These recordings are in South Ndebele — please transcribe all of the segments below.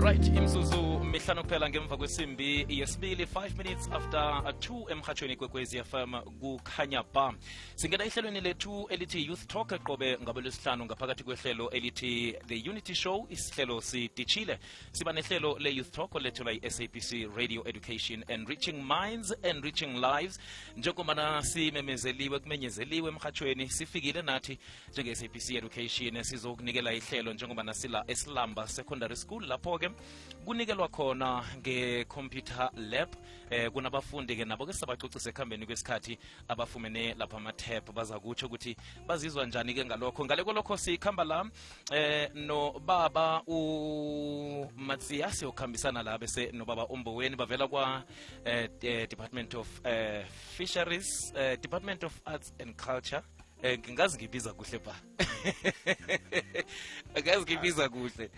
Right, imzuzu mihlanu kuphela ngemva kwesimbi yesibili 5 minutes after 2 emhathweni kwekwezi FM kukhanya ba. Singena ihlelweni lethu elithi Youth Talk qobe ngabelesihlanu ngaphakathi kwehlelo elithi The Unity Show. Isihlelo sidishile. Siba nehlelo le Youth Talk lethula iSABC Radio Education, Enriching Minds, Enriching Lives. Njengoba simemezeliwe kumenyezeliwe emhathweni sifikile nathi njenge-SABC Education sizokunikela ihlelo njengoba nasila eSilamba Secondary School lapho ke kunikelwa khona nge-computer lab. Kunabafundi ke nabo ke sabacocisa ekhambeni kwesikhathi abafumene lapha ama-tab baza kutsho ukuthi bazizwa njani ke ngalokho. Ngale kolokho sikhamba la no baba uMatsiasi okhambisana la bese no baba uMboweni bavela kwa Department of Fisheries, Department of Arts and Culture. Ngingazi ngibiza kuhle ba. Ngazi ngibiza kuhle.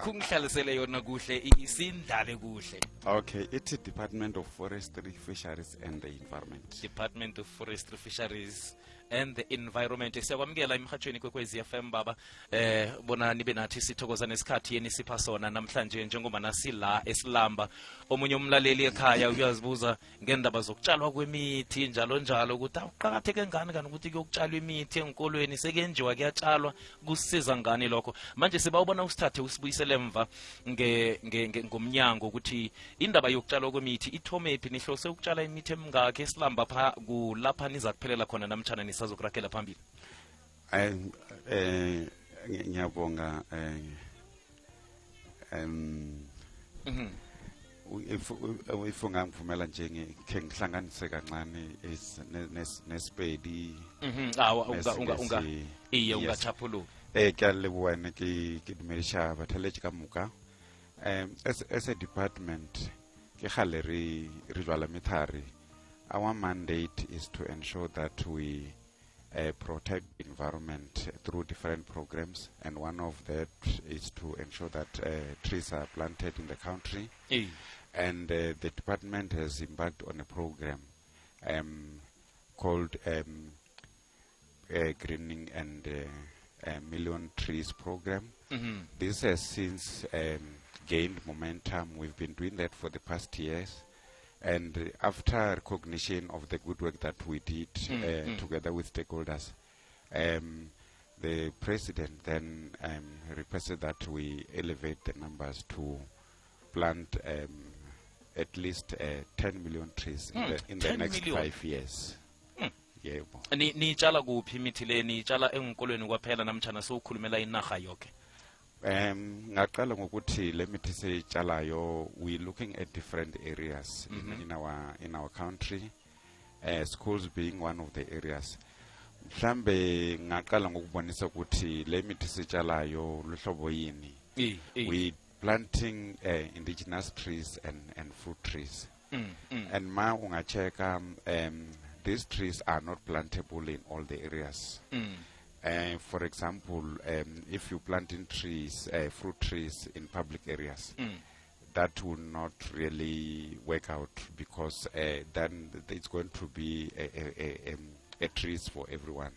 Kungihlalisele yona kuhle isindlale kuhle. Okay, it's Department of Forestry, Fisheries and the Environment. Department of Forestry, Fisheries and the Environment. Siyakwamukela emhathweni kwekwezi FM baba. Bona nibe nathi sithokoza nesikhathi yeni sipha sona namhlanje njengoba nasila eSilamba. Omunye umlaleli ekhaya uyazibuza ngendaba zokutshalwa kwemithi njalo njalo ukuthi uqhakatheke ngani kanti ukuthi kuyokutshalwa imithi enkolweni sekenjiwa kuyatshalwa kusiza ngani lokho. Manje sibawubona usithathe usibuyisele emva ngomnyango ukuthi indaba yokutshalwa kwemithi ithomephi nihlose ukutshala imithi emingaki eSilamba pha kulapha niza kuphelela khona namtjana nisazokurakela phambili. Ngiyabonga if ungangivumela nje ngikhe ngihlanganise kancane nesipedi ungachaphuluka ke leboane ke dumelisha bathaletši ka moka as a department ke gale re jwala methari. Our mandate is to ensure that we protect the environment through different programs, and one of that is to ensure that trees are planted in the country. And the department has embarked on a program called Greening and Million Trees Program. This has since gained momentum. We've been doing that for the past years. And after recognition of the good work that we did together with stakeholders, the president then requested that we elevate the numbers to plant at least 10 million trees in the next 5 years. Yebo. Ni tshala kuphi imithi le ni tshala enkolweni kwaphela namtjana sokhulumela inarha yonke? Ngaqala ngokuthi le mithi seyitshalayo we looking at different areas in our country, schools being one of the areas. Mhlambe ngaqala ngokubonisa ukuthi le mithi seyitshalayo luhlobo yini. We planting indigenous trees and fruit trees. And ma ungacheka these trees are not plantable in all the areas. For example, if you plant in trees, fruit trees in public areas, that will not really work out because then it's going to be a trees for everyone.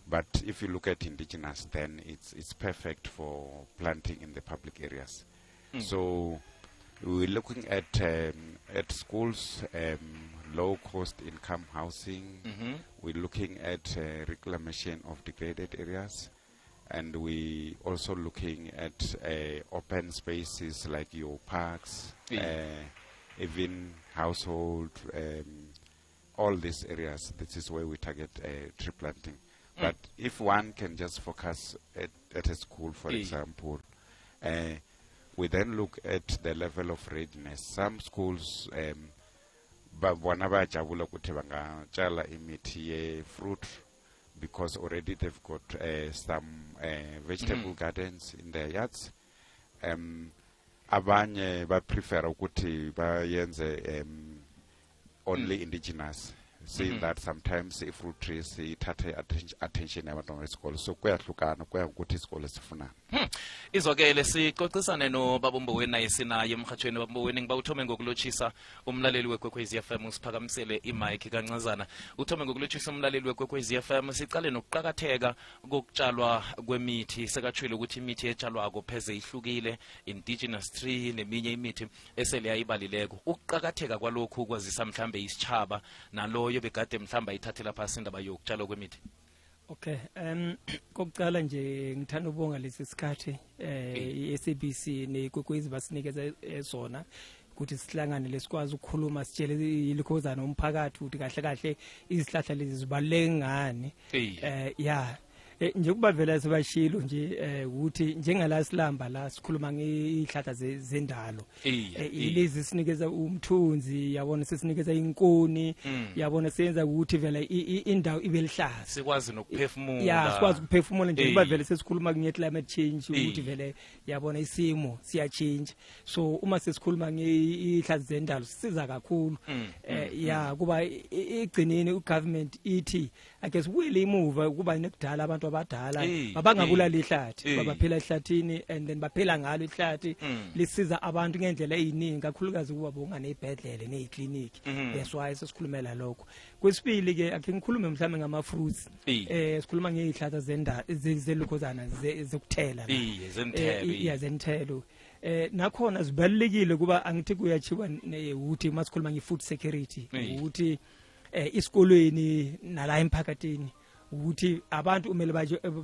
But if you look at indigenous, then it's perfect for planting in the public areas. So we're looking at schools, low cost income housing. We're looking at reclamation of degraded areas, and we also looking at open spaces like your parks, even household, all these areas. This is where we target tree planting. But if one can just focus at a school, for example, we then look at the level of readiness. Some schools bona bayajabula ukuthi bangatshala imithi ye-fruit because already they've got some vegetable gardens in their yards. Abanye prefer ukuthi bayenze only indigenous, saying that sometimes if fruit trees ithathe attention yabantwana besikolo, so kuyahlukana kuya ukuthi isikolo sifuna. Izwakele sixoxisane noBaba Mboweni naye sinaye emhathweni. Baba Mboweni, ngiba uthome ngokulotshisa umlaleli weKwekwezi FM, usiphakamisele imic kancazana. Uthome ngokulotshisa umlaleli weKwekwezi FM, sicale nokuqhakatheka kokutshalwa kwemithi. Sekatshwile ukuthi imithi etshalwako pheze ihlukile, indigenous tree neminye imithi esele yayibalileko. Ukuqhakatheka kwalokhu kwazisa mhlambe isitshaba naloyo begade mhlamba ithathela phasi indaba yokutshalwa kwemithi. Okay, kokucala nje ngithanda ukubonga lesi sikhathi iSABC neKwekwezi basinikeza sona ukuthi sihlangane lesikwazi ukukhuluma sitshele ilikhozana umphakathi ukuthi kahle kahle izihlahla lezi zibaluleke ngani. Nje kuba vela sebashilo nje ukuthi njengala silamba la sikhuluma ngeihlahla zendalo ilezi sinikeza umthunzi, yabona sesinikeza inkoni, yabona senza ukuthi vela indawo ibe lihlaza, sikwazi nokuphefumula. Sikwazi ukuphefumula nje kuba vele sesikhuluma nge climate change ukuthi vele yabona isimo siya change. So uma sesikhuluma ngeihlahla zendalo sisiza kakhulu. Kuba igcineni ugovernment ithi ake sibuye emuva kuba nekudala abantu abadala babangabulala ihlathi, babaphila ehlathini and then baphela ngalo ihlathi lisiza abantu ngendlela eziningi, kakhulukazi kuba bonga nezibhedlele nezikliniki. That's why sesikhulumela lokho. Kwesibili ke ake ngikhulume mhlawumbe ngama fruits. Sikhuluma ngeihlahla zendalo zelukhozana zokuthela la. Zenthelo. Nakhona zibalekile kuba angithi kuyachiwa ukuthi masikhuluma nge-food security ukuthi isikolweni nala emphakathini ukuthi abantu umele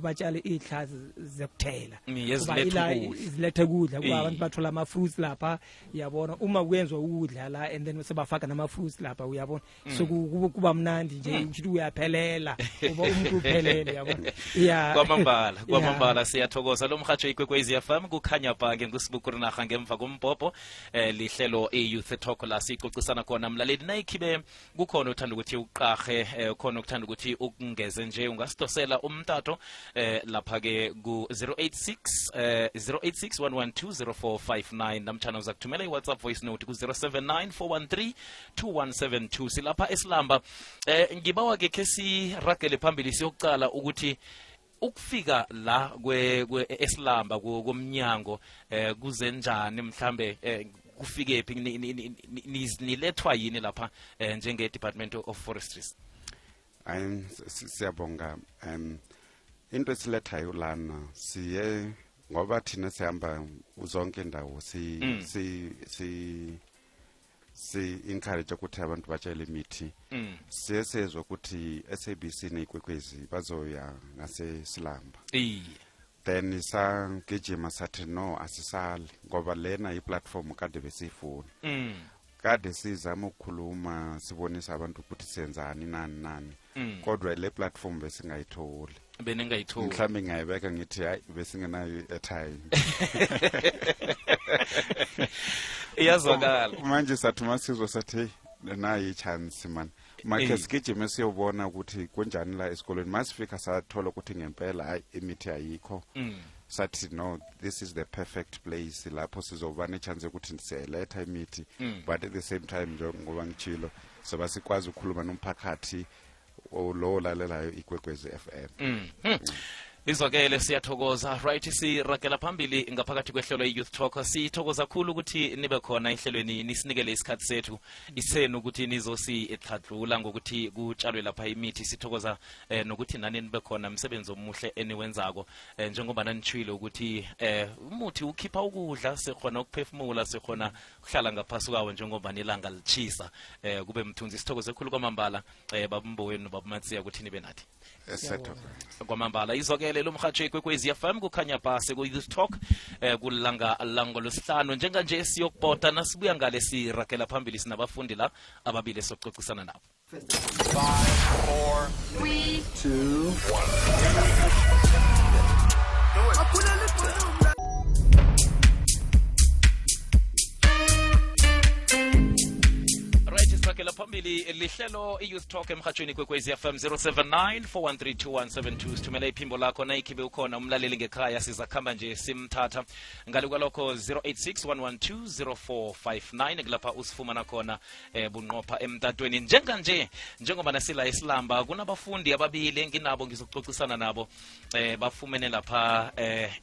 batshale izihlahla zokuthela kuba izilethe ukudla kuba abantu bathola ama fruits lapha, yabona uma kuyenzwa ukudla la and then sebafaka nama fruits lapha, uyabona so kuba mnandi nje ukuthi uyaphelela uba umuntu uphelele, yabona. Kwamambala siyathokoza lo mhatsho iKwekwezi FM kukhanya bhange nguSibukuru naga ngemva kombhobho lihlelo iYouth Talk la sixoxisana khona mlaleli nayikhibe kukhona uthanda ukuthi uqahe khona ukuthanda ukuthi ukungeze nje ungasidosela umtato lapha ke ku 08611200459 namtjana uzakuthumela iWhatsApp voice note ku 0794132172. Silapha esilamba ngibawa ke kesi ragele phambili siyokucala ukuthi ukufika la esilamba komnyango kuzenjani mhlambe kufike phi nilethwa yini lapha njenge Department of Forestries? Siyabonga. Into esilethayo lana siye ngoba thina sihamba uzonke indawo si encourage ukuthi abantu batshale imithi. Siyesezwe ukuthi SABC neKwekwezi bazoya ngasesilamba. Then sagijima sathi no asisali ngoba lena iplatform kade besifuna. Kade sizama ukukhuluma sibonisa abantu ukuthi senzani nani kodwa le platform besingayitholi. Mhlawumbe ngayibeka ngithi hayi besingenayo airtime. Iyazwakala manje sathi masizwe sathi nayi chance man make sigijime siyobona ukuthi kunjani la esikolweni. Masifika sathola ukuthi ngempela hayi imithi ayikho. Sathi no, this is the perfect place lapho sizoba nechance ukuthi siyaletha imithi but at the same time njengoba ngitshilo soba sikwazi ukukhuluma nomphakathi lo lalelayo iKwekwezi FM. Izwakele siyathokoza. Right, siragela phambili ngaphakathi kwehlelo iYouth Talk. Sithokoza kakhulu ukuthi nibe khona ehlelweni nisinikele isikhathi sethu isenu ukuthi nizosihladlula ngokuthi kutshalwe lapha imithi. Sithokoza nokuthi nani nibe khona umsebenzi omuhle eniwenzako njengoba nanitshilo ukuthi umuthi ukhipha ukudla, sikhona ukuphefumula, sikhona kuhlala ngaphasi kwawo njengoba nilanga lichisa kube mthunzi. Sithokoze kakhulu kwamambala Baba Mboweni noBaba Matsiya ukuthi nibe nathi. Kwamambala izwakele lo mhatsho iKwekwezi FM kukhanya phase ku-Youth Talk kulanga lango losihlanu njenganje siyokubhoda nasibuya ngale siragela phambili sinabafundi la ababili soxoxisana nabo. 5, 4, 3, 2, 1. Right, isiragela phambili lihlelo i-youth talk emhatshweni kwekwezi FM 079 sithumela iphimbo lakho nayikhibe ukhona umlaleli ngekhaya sizakhamba nje simthatha ngale kwalokho 086 kulapha usifumana khona bunqopha emtatweni njengoba nasila isilamba kunabafundi ababili enginabo ngizoxoxisana nabo bafumene lapha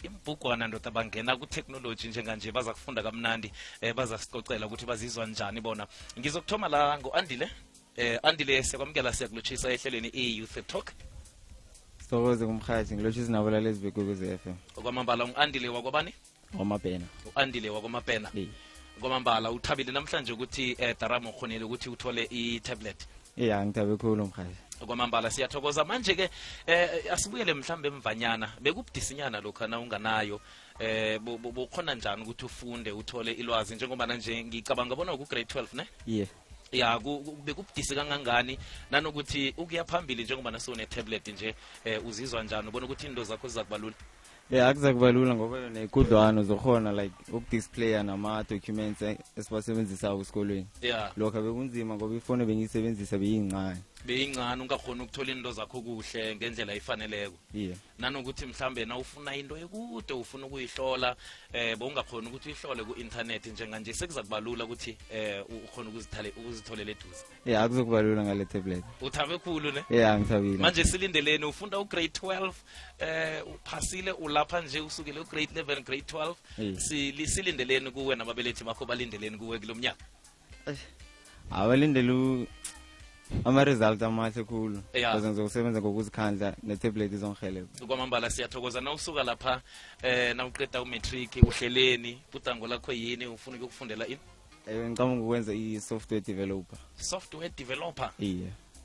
imbhugwana ndoda bangena ku-technology njenganje baza kufunda kamnandi baza sicocela ukuthi bazizwa njani bona ngizokuthoma la ngo-Andile Andile siyakwamukela siyakulotshisa ehlelweni i-youth talk Sithokoze kumkhathi ngilotshisa nabo lalezi bekwekwezi FM okwamambala u-Andile wakwabani Wamapena u-Andile wakwamapena kwamambala uthabile namhlanje ukuthi Daramo ukhonile ukuthi uthole i-tablet ngithabe khulu mkhathi kwamambala siyathokoza manje ke asibuyele mhlambe emvanyana bekubudisinyana lokho na unganayo bukhona njani ukuthi ufunde uthole ilwazi njengoba nje ngicabanga bona ku grade 12 ne ya bekubudisi kangangani nanokuthi ukuya phambili njengoba nasone tablet nje uzizwa njani ubona ukuthi into zakho zizakubalula akuzakubalula ngoba yona ikudlwana uzokhona like ukudisplaya nama documents esibasebenzisa esikolweni lokho bekunzima ngoba ifone bengiyisebenzisa beyincane ungakhona ukuthola into zakho kuhle ngendlela efaneleko nanokuthi mhlambe na ufuna into ekude ufuna ukuyihlola bowungakhona ukuthi uyihlole ku-internet njenganje sekuzakubalula ukuthi ukhona ukuzitholela eduze akuzokubalula ngale tablet uthabe khulu ne ngithabile manje silindeleni ufunda ugrade 12 uphasile ulapha nje usukele ugrade 11 grade 12 silindeleni kuwe nababelethi bakho balindeleni kuwe kulomnyaka abalindele ama-result amahle khulu ukuze ngizokusebenza ngokuzikhandla ne-tablet izongihelebha kwamambala siyathokoza na usuka lapha nawuqeda umatric uhleleni budango lakho yini ufuna ukufundela ini ngicabanga ukwenza i-software developer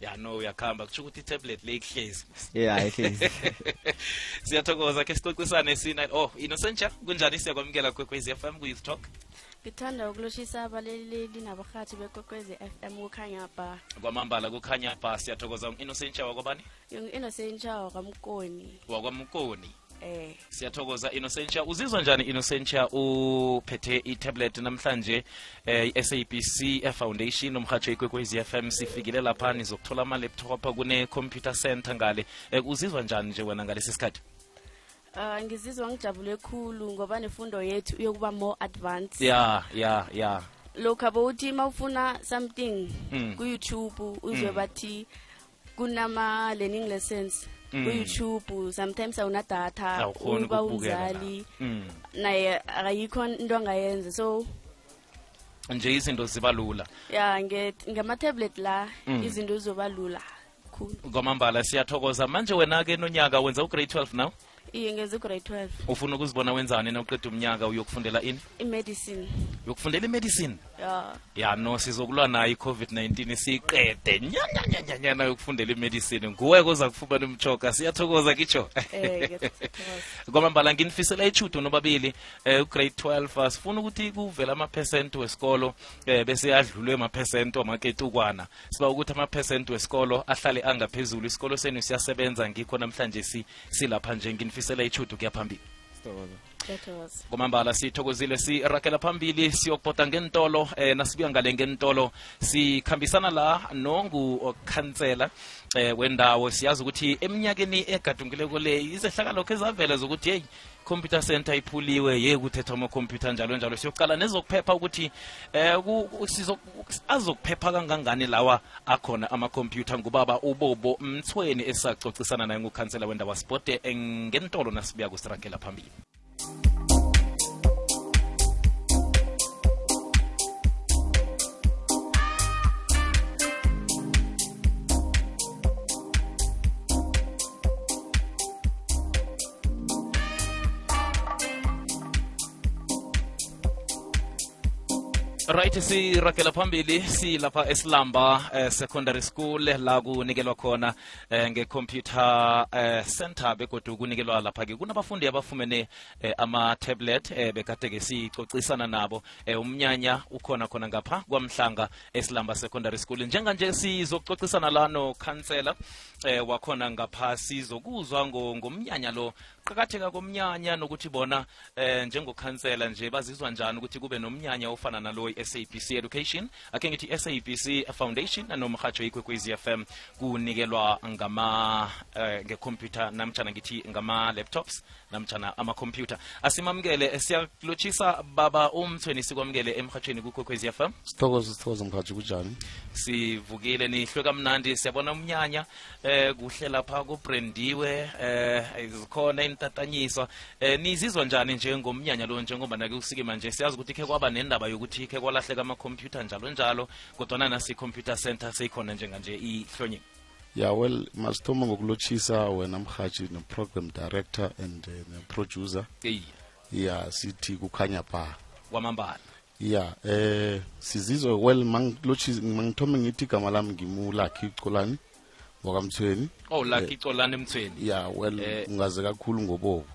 ya no uyakhamba kusho ukuthi i-tablet le ihlezi ihlezi siyathokoza ke sixoxisane Innocentia kunjani siyakwamukela kwekwezi FM ku-youth talk ngithanda ukulotshisa abaleleli nabarhathi bekwekwezi FM kukhanya ba kwamambala kukhanya ba siyathokoza Innocentia wakwabani Innocentia wakwamkoni siyathokoza Innocentia uzizwa njani Innocentia uphethe i-tablet namhlanje i-SABC Foundation umhatsho ikwekwezi FM sifikile lapha nizokuthola ama-laptop kune-computer center ngale uzizwa njani nje wena ngalesi sikhathi ngizizwa ngijabule khulu ngoba nefundo yethu iyokuba more advanced lokho abawuthi mawufuna something ku-YouTube uzwe bathi kunama learning lessons ku-YouTube sometimes awuna data uba umzali naye akayikho into angayenza so nje izinto ziba lula ngama-tablet la izinto zizoba lula khulu kwamambala siyathokoza manje wena-ke nonyaka wenza ugrade 12 now ngenza ugrade 12 ufuna ukuzibona wenzani na uqeda umnyaka uyokufundela ini imedicine uyokufundela imedicine no sizokulwa nayo i-COVID-19 siyiqede nyanyanyanyana yokufundela imedicine nguwe koza kufumana umchoka siyathokoza kitsho kwamambala nginifisela ichudo nobabili ugrade 12 asifuna ukuthi kuvela ama-percent wesikolo bese adlulwe ama-percent wamaketukwana siba ukuthi ama-percent wesikolo ahlale angaphezulu isikolo senu siyasebenza ngikho namhlanje silapha nje nginifisela ichudo kuyaphambili kwamambala sithokozile sirakela phambili siyokubhoda ngentolo nasibuya ngale ngentolo sikhambisana la nongukhansela wendawo siyazi ukuthi eminyakeni egadungileko le izehlakalo kezavela zokuthi hey computer center iphuliwe kuthethwa ama-computer njalo siyoqala nezokuphepha ukuthi azokuphepha kangangani lawa akhona ama-computer ngubaba uBobo Mthweni esacocisana naye ngukhansela wendawo sibhode ngentolo nasibuya kusirakela phambili right sirakela phambili silapha esilamba secondary school la kunikelwa khona nge-computer center begodu kunikelwa lapha-ke kunabafundi abafumene ama-tablet bekade-ke sicocisana nabo umnyanya ukhona khona ngapha kwamhlanga esilamba secondary school njenganje sizokucocisana la nokhansela wakhona ngapha sizokuzwa ngomnyanya lo qakatheka komnyanya nokuthi bona njengokhansela nje bazizwa njani ukuthi kube nomnyanya ofana nalo SABC Education ake ngithi SABC Foundation nomhatsho ikwekwezi FM kunikelwa ngama ngecomputer namtjana ngithi ngama laptops namtjana ama computer. Asimamukele siyakulotshisa baba umthweni sikwamukele emhatshweni kukwekwezi FM. Sithokoza mkhathi kunjani? Sivukile nihlwe kamnandi siyabona umnyanya kuhle lapha kubrandiwe izikhona intatanyiswa nizizwa njani njengomnyanya lo njengoba nake usike manje siyazi ukuthi ke kwaba nendaba yokuthi ke kwalahleka ama computer njalo kodwa nasi computer center seyikhona njenganje ihlonye. Yeah, well, masithoma ngokulotshisa wena mkhathi no program director and the producer. Yeah, sithi kukhanya ba kwamambala. Yeah, sizizwe well mangithome ngithi igama lami ngimulakhi Xolani wakamthweni. Oh, Lucky Xolani emthweni. Yeah, well ungaze kakhulu ngobobo.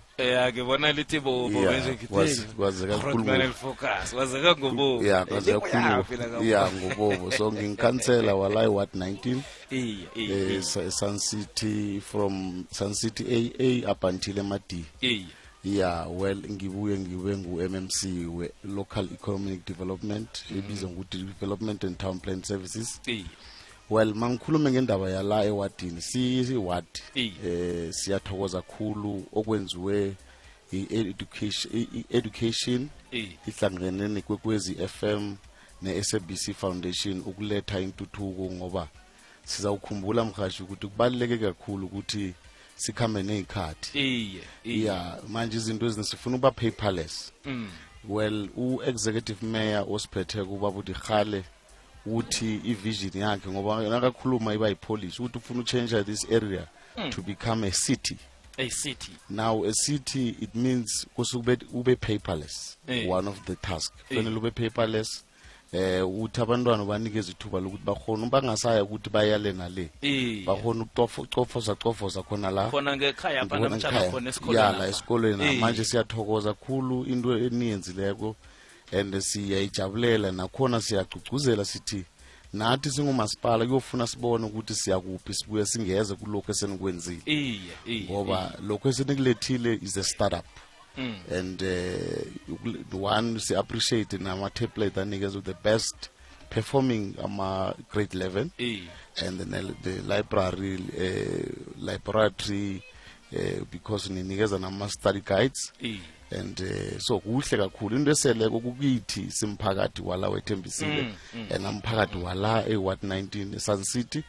Ngibona lithi bobo bese ngithi kwaze kakhulu focus wazeka ngobobo. Yeah, kwaze kakhulu. Yeah, ngobobo. So ngingikhansela walai what 19. Sun City from Sun City AA up until MD. Yeah, well ngibuye ngibe ngu-MMC we Local Economic Development ebizwa ngokuthi Development and Town Plan Services. Well mangikhuluma ngendaba yala ewadini si ward siyathokoza kakhulu okwenziwe education ihlangene nekwekwezi FM ne-SABC Foundation ukuletha intuthuko ngoba sizawukhumbula mkhashi ukuthi kubaluleke kakhulu ukuthi sikhambe nezikhathi. Yeah, manje izinto ezinisifuna uba paperless. Well u-executive mayor osiphethe kuba buthi khale uthi i-vision yakhe ngoba nakakhuluma iba yi-polish ukuthi ufuna change this area to become a city. A city. Now a city it means ube paperless. One of the tasks. Fanele ube paperless. Uthi abantwana banikeza ithuba lokuthi bakhona bangasaya ukuthi bayale nale bakhona ukucofoza khona la khona ngekhaya apha namtjana khona esikolweni yala esikolweni manje siyathokoza kakhulu into eniyenzileko and siyayijabulela nakhona siyagcugcuzela sithi nathi singumasipala kuyofuna sibone ukuthi siyakuphi sibuye singeze kulokho esenikwenzile ngoba lokho esenikulethile is a startup. And the one we appreciate in our template and niggas with the best performing grade 11 and then the library because niggas and study guides and so kuhle kakhulu into eseleko kukithi simphakathi wala wethembisile and amphakathi wala e-Ward 19 Sun City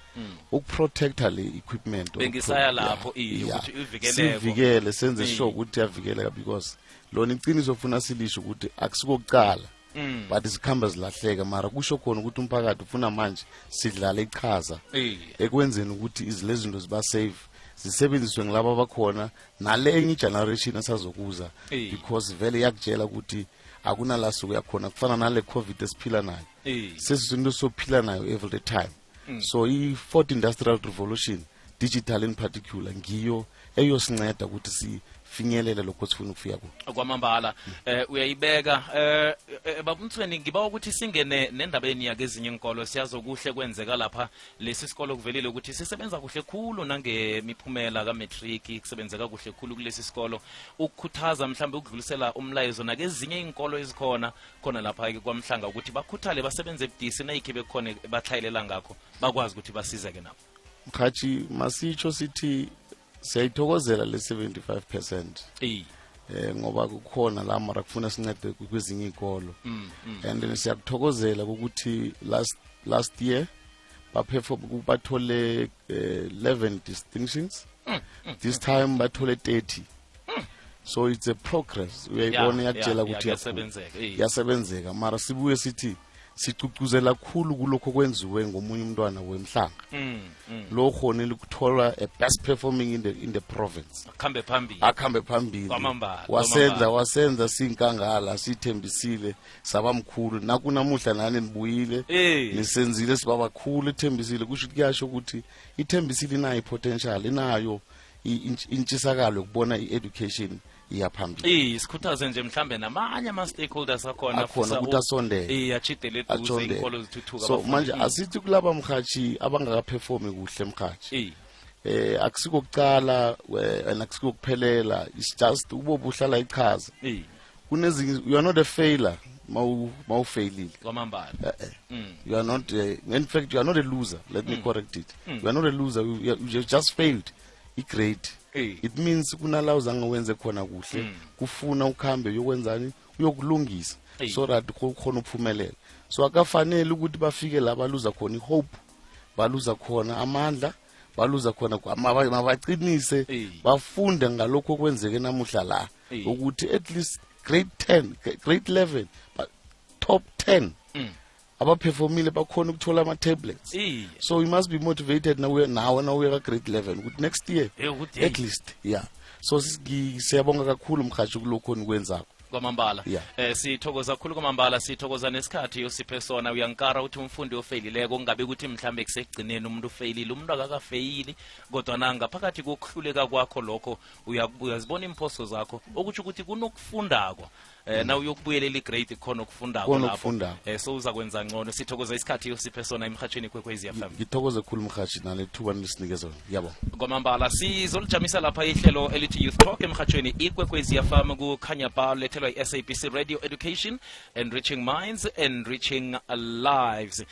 ukuprotecta le equipment bengisaya lapho ukuthi ivikeleke sivikele senze sure ukuthi yavikeleka because lona iqiniso ufuna silisho ukuthi akusikokuqala but isikhamba zilahleka mara kusho khona ukuthi umphakathi ufuna manje sidlala iqhaza ekwenzeni ukuthi izilezinto ziba safe zisebenziswe ngilabo abakhona nale enye generation asazokuza because vele yakutshela ukuthi akunala suku yakhona kufana nale covid esiphila nayo sesizinto sophila nayo every time. So i-4th industrial revolution digital in particular ngiyo eyosinceda ukuthi sifinyelele lokho sifuna ukufika ku kwamambala. Uyayibeka babumthweni ngiba ukuthi singene nendabeni yake ezinye inkolo siyazokuhle kwenzeka lapha lesi sikolo kuvelile ukuthi sisebenza kuhle khulu nangemiphumela ka matric kusebenzeka kuhle khulu kulesi sikolo ukukhuthaza mhlambe ukudlulisela umlayezo nake ezinye inkolo ezikhona khona lapha ke kwamhlanga ukuthi bakhuthale basebenze ebudisi nayikhe bekhona bahlayilela ngakho bakwazi ukuthi basizeke nabo. Mkhathi masitsho sithi siyayithokozela le 75% ngoba kukhona la mara kufuna sincede kwezinye izikolo and siyakuthokozela ukuthi last year bathole 11 distinctions this time bathole 30 so it's a progress uyayibona yakutshela ukuthi yasebenzeka mara sibuye sithi sicucuzela kakhulu kulokho kwenziwe ngomunye umntwana wemhlanga lo khonile ukuthola a best performing in the province akhambe phambili wasenza sinkangala sithembisile sabamkhulu nakunamuhla nani nibuyile nisenzile sibaba khulu ithembisile kusho kuyasho ukuthi ithembisile inayo potential inayo intshisakalo ukubona i-education iyaphambili sikhuthaze nje mhlambe namanye ama stakeholders akhona ukuthi asondele achidele eduze inkolo zithuthuka so manje asithi kulaba mkhathi abangakaperform kuhle mkhathi akusikokucala akusikokuphela it's just ubobuhlala ichaza kunezinye you are not a failure mawufailile kwamambala. You are not in fact you are not a loser, let me correct it. You are not a loser, you just failed i-grade. It means kunala uzange wenze khona kuhle kufuna ukhambe uyokwenzani uyokulungisa so that khona uphumelela. So akafanele ukuthi bafike la baluza khona ihope, baluza khona amandla, baluza khona mabaqinise bafunde ngalokho okwenzeke namuhla la ukuthi at least grade 10 grade 11 top 10 abaperformile bakhona ukuthola ama tablets. So we must be motivated now we are grade 11 ukuthi next year at least so siyabonga kakhulu mkhathi kulokho nikwenzako kwamambala. Sithokoza kakhulu kwamambala, sithokoza nesikhathi yosiphe sona. Uyankara ukuthi umfundi ofeyilileko kungabe ukuthi mhlambe kusegcineni umuntu ufeyilile, umuntu akakafeyili kodwa nanga phakathi kokuhluleka kwakho lokho uyazibona imphoso zakho okuthi ukuthi kunokufundako na uyokubuyelela igrade khona ukufundako lapho so uzakwenza ngcono. Sithokoza isikhathi yosiphe sona emhathweni kwekwezi FM. Ngithokoze kakhulu mhathi nalethuba nilisinikeza yabo kwamambala. Sizolijamisa lapha ihlelo elithi Youth Talk emhathweni ikwekwezi FM kukhanya ba lethelwa i-SABC Radio Education, Enriching Minds, Enriching Lives.